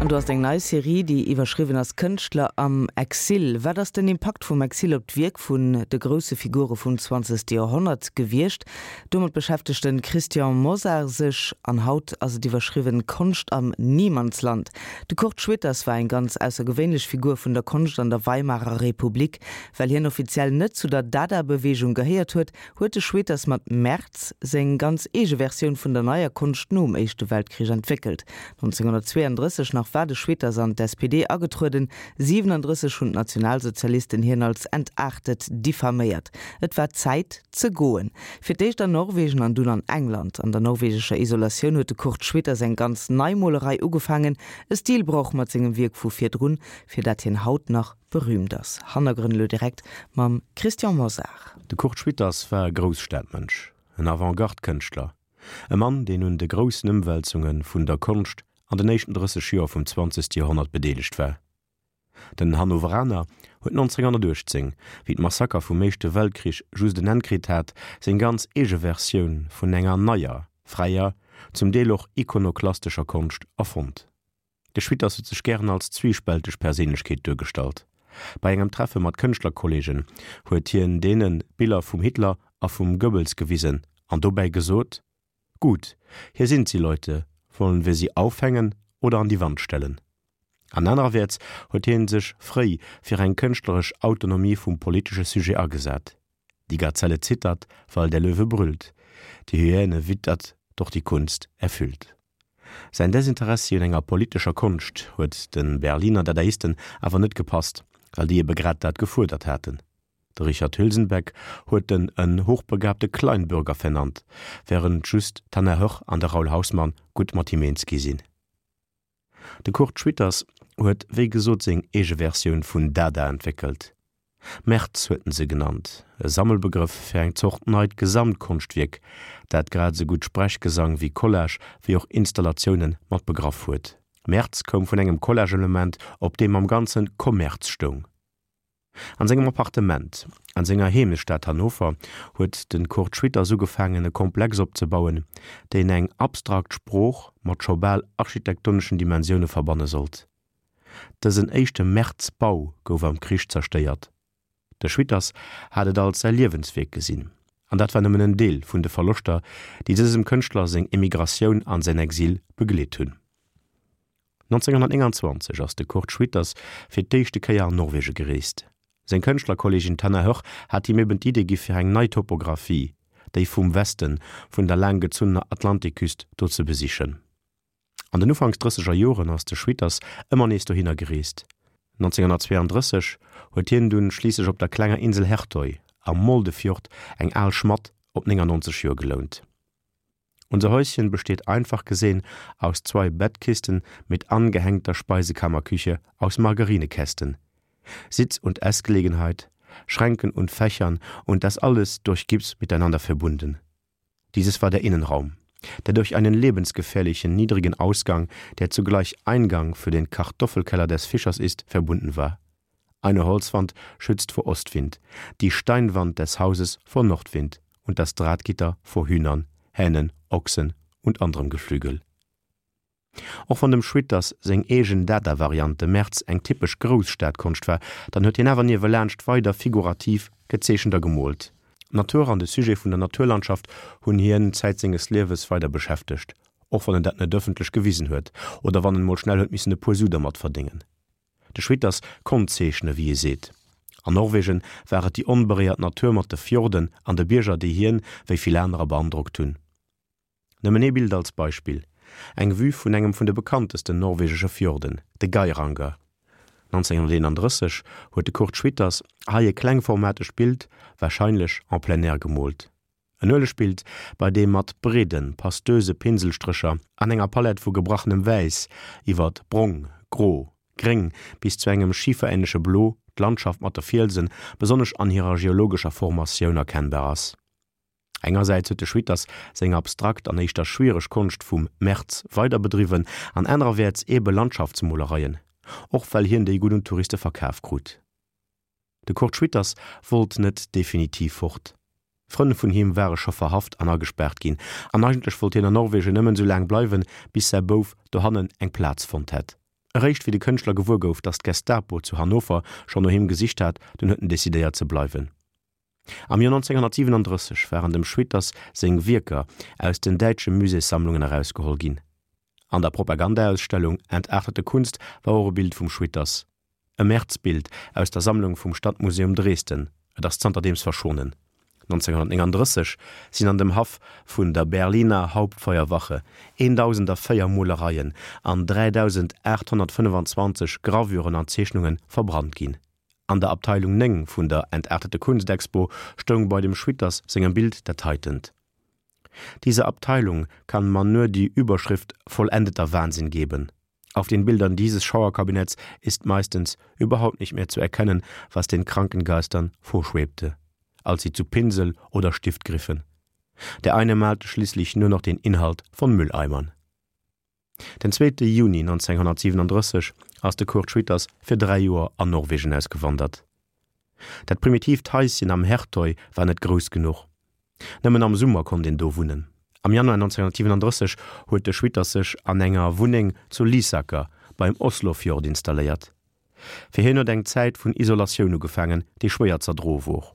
An do ass eng nei Serie, déi iwwerschriwwen ass Kënschtler am Exil. Wat ass den Impakt vum Exil op d'Wierk vun de grousse Figure vum zwanzegste Joerhonnert gewiescht? Domat beschäftegt de Christian Mosar sech. An haut ass et iwwerschriwwen Konscht am Niemandsland. De Kurt Schwitters war eng ganz aussergewéinlech Figur vun der Konscht an der Weimarer Republik. Well hien offiziell net zu der Dada-Beweegung gehéiert huet, huet de Schwitters mat Merz seng ganz eege Versioun vun der Neier Konscht nom Éischte Weltkrich entwéckelt. 1932 nach war de Schwitters an d'SPD agetrueden, 37 hunn d'Nationalsozialisten hien als entaartet diffaméiert. Et war Zäit ze goen. Fir d'éischt an Norwegen an dunn an England. An der norwegescher Isolatioun huet de Kurt Schwitters eng ganz nei Molerei ugefaangen, e Stilbroch mat sengem Wierk vu virdrun, fir dat hien haut nach berühmt ass. Hannergrënn elo direkt mam Christian Mosar. De Kurt Schwitters war e Grousstadmënsch, en Avantgarde-Kënschtler, e Mann, deen un de groussen Ëmwälzunge vun der Konscht an den éischten 30 Joer vum zwanzegste Joerhonnert bedeelegt war. Den Hannoveraner huet 1918, wéi d'Massaker vum Éischte Weltkrich just en Enn kritt hat, seng ganz eege Versioun vun enger neier, fräier, zum Deel och ikonoklastescher Konscht erfonnt. De Schwitters huet sech gären als zwiespälteg Perséinlechkeet duergestallt. Bei engem Treffe mat Kënschtlerkolleegen huet hien deene Biller vum Hitler a vum Goebbels gewisen an dobäi gesot, Gut, hier sind sie, Leute, wollen wir sie aufhängen oder an die Wand stellen? An anererwäerts huet hien sech fréi fir eng kënschtleresch Autonomie vum politesche Sujet agesat. Die Gazelle zittert, weil der Löwe brüllt, die Hyäne wittert, doch die Kunst erfüllt. Säin Desinteressi un enger politescher Konscht huet de Berliner Dadaisten awer net gepasst, well déi ebe grad dat gefuerdert haten. De Richard Hülsenbeck huet en en hochbegabte Kleinbürger vernannt, wärend just d'Hannah Höch an de Raoul Hausmann gutt mat him eens gi sinn. De Kurt Schwitters huet wéi gesot seng eege Versioun vun Dada entwéckelt. Merz huet en se genannt, e Sammelbegrëff fir eng Zort neit Gesamtkonschtwierk, dat grad esou gutt Sprechgesang wéi Collage wéi och Installatioune mat begraff huet. Merz koum vun engem Collage-Element, op deem am Ganzen Kommerz stoung. An sengem Appartement an senger Heemechtsstad Hannover huet de Kurt Schwitters ugefaangen e Komplex opzebauen, deen eng abstrakt Sprooch mat scho bal architektoneschen Dimensioune verbanne sollt. Dësen éischte Merz-Bau gouf am Krich zerstéiert. De Schwitters hat et als säi Liewenswierk gesinn, an dat war nëmmen en Deel vun de Verloschter, déi dësem Kënschtler seng Emigratioun an säin Exil begleet hunn. 1929 ass de Kurt Schwitters fir d'éischte Kéier an Norwege gereest. Seng Kënschtlerkolleegin Tanna Höch hat him eben d'Idee gi fir eng nei Topographie, déi vum Westen vun der laanggezunnener Atlantikküst, do ze besichen. An den Ufanks drësseger Joren ass de Schwitters ëmmer nees dohinner gereest. 1932 huet hien dunn schliisslech op der klenger Insel Hertøy am Moldefjord eng al Schmadd op 99 Joer gelount. Unser Häuschen besteht einfach gesehen aus zwei Bettkisten mit angehängter Speisekammerküche aus Margarinekästen, Sitz- und Essgelegenheit, Schränken und Fächern und das alles durch Gips miteinander verbunden. Dieses war der Innenraum, der durch einen lebensgefährlichen niedrigen Ausgang, der zugleich Eingang für den Kartoffelkeller des Fischers ist, verbunden war. Eine Holzwand schützt vor Ostwind, die Steinwand des Hauses vor Nordwind und das Drahtgitter vor Hühnern, Hähnen, Ochsen und anderem Geflügel. Och wann dem Schwitters seng eegen Dada-Variant de Merz eng typesch Grousstadkonscht war, dann huet hien awer niewelaanscht weider figurativ gezeechent a gemoolt. D'Natur an de Sujet vun der Naturlandschaft hunn hien Zäit senges Liewes weider beschäftegt, och wann en dat net ëffentlech gewisen huet oder wann en mol schnell huet missen e puer Su dermat verdéngen. De Schwitters konnt zeechne wéi ee seet. An Norwegen war et déi onberéiert Natur mat de Fjorden an de Bierger déi hien, wéi vill anerer, beandrockt hunn. Nëmmen ee Bild als Beispill, eng Vue vun engem vun de bekanntesten norwegesche Fjorden, de Geiranger. 1931 huet de Kurt Schwitters hei e klengformategt Bild, warscheinlech en plein air gemoolt. En Uelegbild, bei deem mat breeden, pastöse Pinselstrécher an enger Palett vu gebrachnem Wäiss iwwert brong, gro, gréng bis zu engem schiferähnleche Blo d'Landschaft mat de Fielsen, besonnesch an hirer geologescher Formatioun, erkennbar ass. Engersäits huet de Schwitters seng abstrakt an éischter schwiereg Konscht vum Merz weider bedriwwen an anererwäerts eebe Landschaftsmolereien, och well hien déi gutt un d'Touriste verkaf krut. De Kurt Schwitters wollt net definitiv fort. Frënn vun him ware scho verhaft an agespaart ginn, an eigentlech wollt hien an Norwegen nëmmen esou laang bleiwen, bis säi Bouf dohannen eng Plaz fonnt hätt. Eréischt wéi de Kënschtler gewuer gouf, datt d'Gestapo zu Hannover schonn no him gesicht hat, dunn huet en decidéiert ze bleiwen. Am Joer 1937 waren dem Schwitters seng Wierker aus den däitsche Muséessammlungen erausgeholl ginn. An der Propagandaausstellung Entartete Kunst war och e Bild vum Schwitters. E Märzbild aus der Sammlung vum Stadtmuseum Dresden, et ass zanterdeems verschwonnen. 1939 sinn an dem Haff vun der Berliner Hauptfeuerwache 1.004 Molereien an 3.825 Gravuren an Zeechnunge verbrannt ginn. An der Abteilung 9 vun der Entartete Kunst-Expo stoung bei dem Schwitters sengem Bild dat heitent, Dieser Abteilung kann man nur die Überschrift Vollendeter Wahnsinn geben. Auf den Bildern dieses Schauerkabinetts ist meistens überhaupt nicht mehr zu erkennen, was den kranken Geistern vorschwebte, als sie zu Pinsel oder Stift griffen. Der eine malte schließlich nur noch den Inhalt von Mülleimern. Den zweete Juni 1937 ass de Kurt Schwitters fir 3 Joer an Norwegen ausgewandert. Dat primitiivt Haischen am Hertøy war net grouss genuch. Nëmmen am Summer konnt een do wunnen. Am Januar 1937 huet de Schwitters sech an enger Wunneng zu Lysaker beim Oslofjord installéiert. Fir hien huet eng Zäit vun Isolatioun ugefaangen, déi schwéier z'erdroe wor.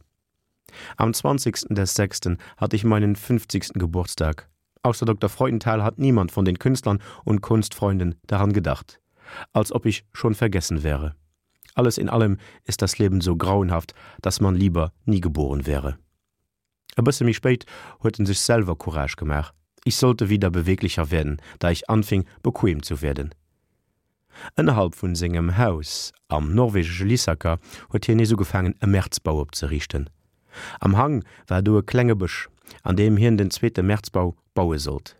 Am 20. des Sechsten hatte ich meinen 50. Geburtstag. Außer Dr. Freudenthal hat niemand von den Künstlern und Kunstfreunden daran gedacht, als ob ich schon vergessen wäre. Alles in allem ist das Leben so grauenhaft, dass man lieber nie geboren wäre. E bësse méi spéit huet en sech selwer Courage gemaach, Ich sollte wieder beweglicher werden, da ich anfing, bequem zu werden. Ënnerhalb vun sengem Haus am norwegesche Lysaker huet hien nees ugefaangen e Märzbau opzeriichten. Am Hang war do e klenge Bësch, an deem hien den zweete Märzbau baue sollt.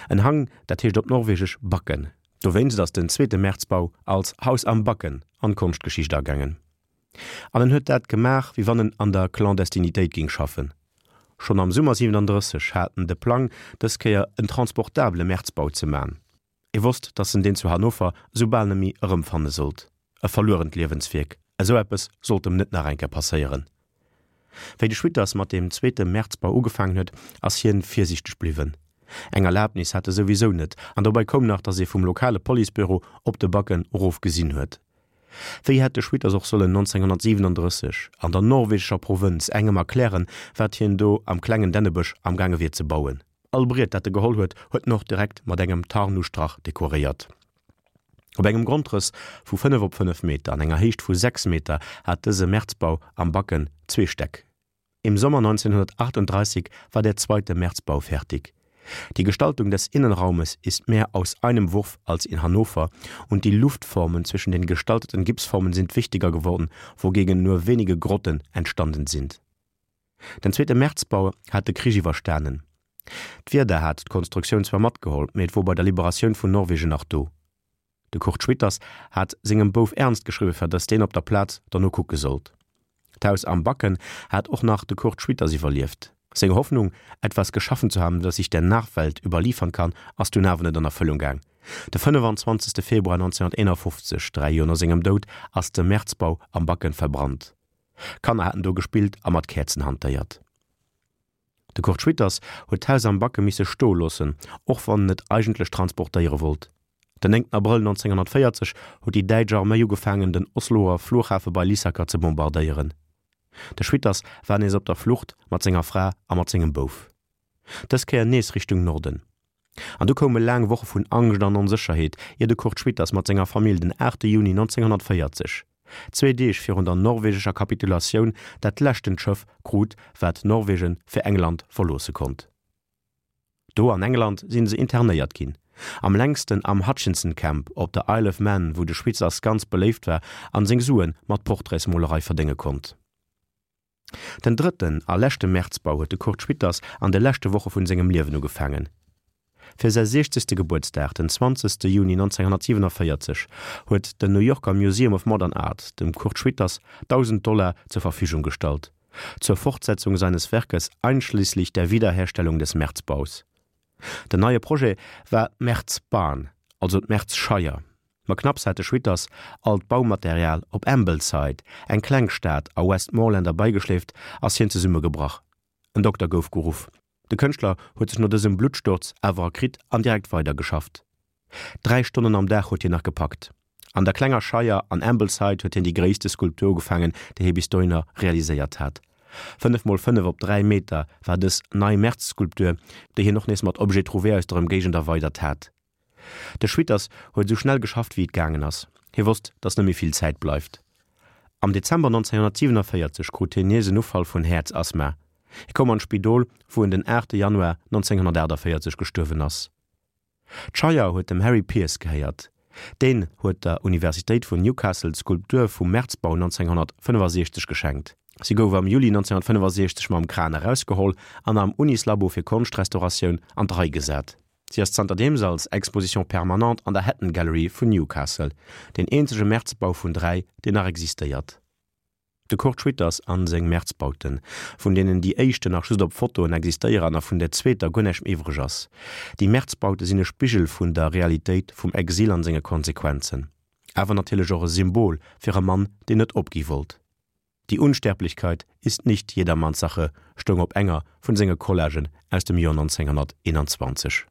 En Hang, dat heescht op norwegesch Bakken. Dowéinst ass den zweete Märzbau als Haus am Bakken an d'Konschtgeschicht agaangen. An en huet dat gemaach, wéi wann en an der Clandestinitéit géing schaffen. Schonn am Summer 37 hat en de Plang, dës Kéier en transportabele Märzbau ze man. E wosst, datt en deen zu Hannover esou bal nemmi erëmfanne sollt. E verluerent Liewenswierk, esou eppes sollt em net nach eng Kéier passéieren. Wéi de Schwitters mat deem zweete Märzbau ugefaangen huet, ass hien virsiichteg bliwwen. Eng Erlabnis hat e souwisou net, an dobei koum nach, datt ee vum lokale Policebüro op de Backen erof gesinn huet. Wéi hätt de Schwitters och sollen 1937 an der norwegescher Provënz engem erklären, wat hien do am klengen Dännebësch amgaange wier ze bauen? All Briet dat e geholl huet, huet en och direkt mat engem Tarnustrach dekoréiert. Op engem Grondrëss vu 5 op 5 Meter an enger Héicht vu 6 Meter hat dëse Märzbau am Backen zwee Stäck. Im Sommer 1938 war der zweite Märzbau fertig. Die Gestaltung des Innenraumes ist mehr aus einem Wurf als in Hannover und die Luftformen zwischen den gestalteten Gipsformen sind wichtiger geworden, wogegen nur wenige Grotten entstanden sind. Den zweete Märzbau hat de Krich iwwerstanen. D'Wieder hat d'Konstruktioun zwar matgeholl, mee et wor bei der Liberatioun vun Norwegen nach do. De Kurt Schwitters hat sengem Bouf Ernst geschriwwe fir datt deen op der Plaz derno kucke sollt. D'Haus am Backen hat och nach de Kurt Schwitters iwwerlieft. Seng Hoffnung, etwas geschaffen zu haben, das ich der Nachwelt überliefern kann, ass dunn awer net an Erfëllung gaang. De 25. Februar 1951, 3 Joer no sengem Doud, ass de Märzbau am Backen verbrannt. Kanner haten do gespillt a mat Käerzen hantéiert. De Kurt Schwitters huet d'Haus am Backe misse stoe loossen, och wann en et eigentlech transportéiere wollt. Den 9 Abrëll 1940 huet déi däitsch Arméi ugefaangen den Osloer Flughafe bei Lysaker ze bombardéieren. De Schwitters war nees op der Flucht mat senger Fra a mat sengem Bouf. Dës Kéier nees Richtung Norden. An du koume laang Woche vun Angscht an Onsécherheet, ier de Kurt Schwitters mat senger Famill den 8 Juni 1940, zwee Deeg virun der norwegescher Kapitulatioun, dat leschtent Schëff krut, wat Norwegen fir England verloosse konnt. Do an England si se internéiert ginn, am längsten am Hutchinson Camp op der Isle of Man, wou de Schwitzers ganz beléift war an seng Sue mat Portraitsmolerei verdénge konnt. Den drëtten a leschte Märzbau huet de Kurt Schwitters an de leschte Woche vun sengem Liewen ugefaangen. Fir säi siechzegste Gebuertsdag, den 20. Juni 1947, huet den New Yorker Museum of Modern Art dem Kurt Schwitters 1.000 Dollar zur Verfügung gestallt, zur Fortsetzung seines Werkes einschließlich der Wiederherstellung des Merzbaus. Den neie Projet war d'Merzbarn, also d'Merzscheier. Ma knapps hat de Schwitters all d'Baumaterial op Ambleside, eng kleng Stad a Westmoreland erbeigeschleeft, ass hien zesummegebrach. En Dokter gouf geruff. De Kënschtler huet sech no dësem Bluttsturz awer erkritt an direkt weidergeschafft. 3 Stonnen am Dag huet hien nach gepackt. An der klenger Scheier an Ambleside huet hien déi gréisste Skulptur ugefaangen, déi hie bis dohinner realiséiert hat. 5 mol 5 op 3 Meter war dës nei Merz-Skulptur, déi hien och nees mat Objets trouvés aus der Ëmgéigend erweidert hat. De Schwitters huet esou schnell geschafft wéi et gaangen ass. Hie wosst, datt net méi vill Zäit bleift. Am Dezember 1947 krut hien nees en Ufall vun Häerzasthma. Hie koum an d'Spidol, wou en den 8 Januar 1948 gestuerwen ass. D'Scheier huet dem Harry Pearce gehéiert. Deen huet der Universitéit vun Newcastle d'Skulptur vum Merzbau 1965 geschenkt. Si gouf am Juli 1965 mam Kran erausgeholl an am Unislabo fir Konschtrestauratioun an d'Rei gesat. Si ass zanterdeems als Exposition permanente an der Hatton Gallery vun Newcastle, deen eenzege Merzbau vun 3, deen nach existéiert. De Kurt Schwitters an seng Merzbauten, vun deenen déi éischte nach just op Fotoen existéieren a vun der zweeter guer näischt méi iwwreg ass. Déi Merzbaute sinn e Spigel vun der Realitéit vum Exil an senge Konsequenzen. Awer natierlech och e Symbol fir e Mann, deen net opgi wollt. Die Unsterblichkeit ist nicht jedermanns Sache stoung op enger vun senge Collagen aus dem Joer 1921.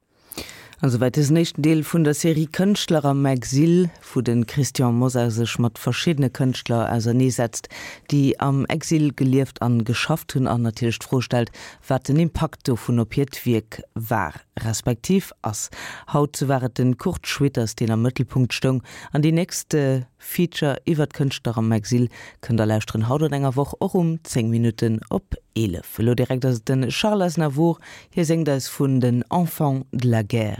An souwäit dësen éischten Deel vun der Serie Kënschtler am Exil, wou de Christian Mosar sech mat verschiddene Kënschtler auserneesetzt, déi am Exil gelieft an geschafft hunn an natierlech d'Fro stellt, wat den Impakt dovun op hiert Wierk war, respektiv ass. Haut war et de Kurt Schwitters, deen am Mëttelpunkt stoung an déi nächst Feature iwwert Kënschtler am Exil kënnt der lauschteren haut an enger Woch och um 10 Minutten op 11. Elo direkt ass et de Charles Aznavour, Hie séngt eis vun den Enfants de la guerre.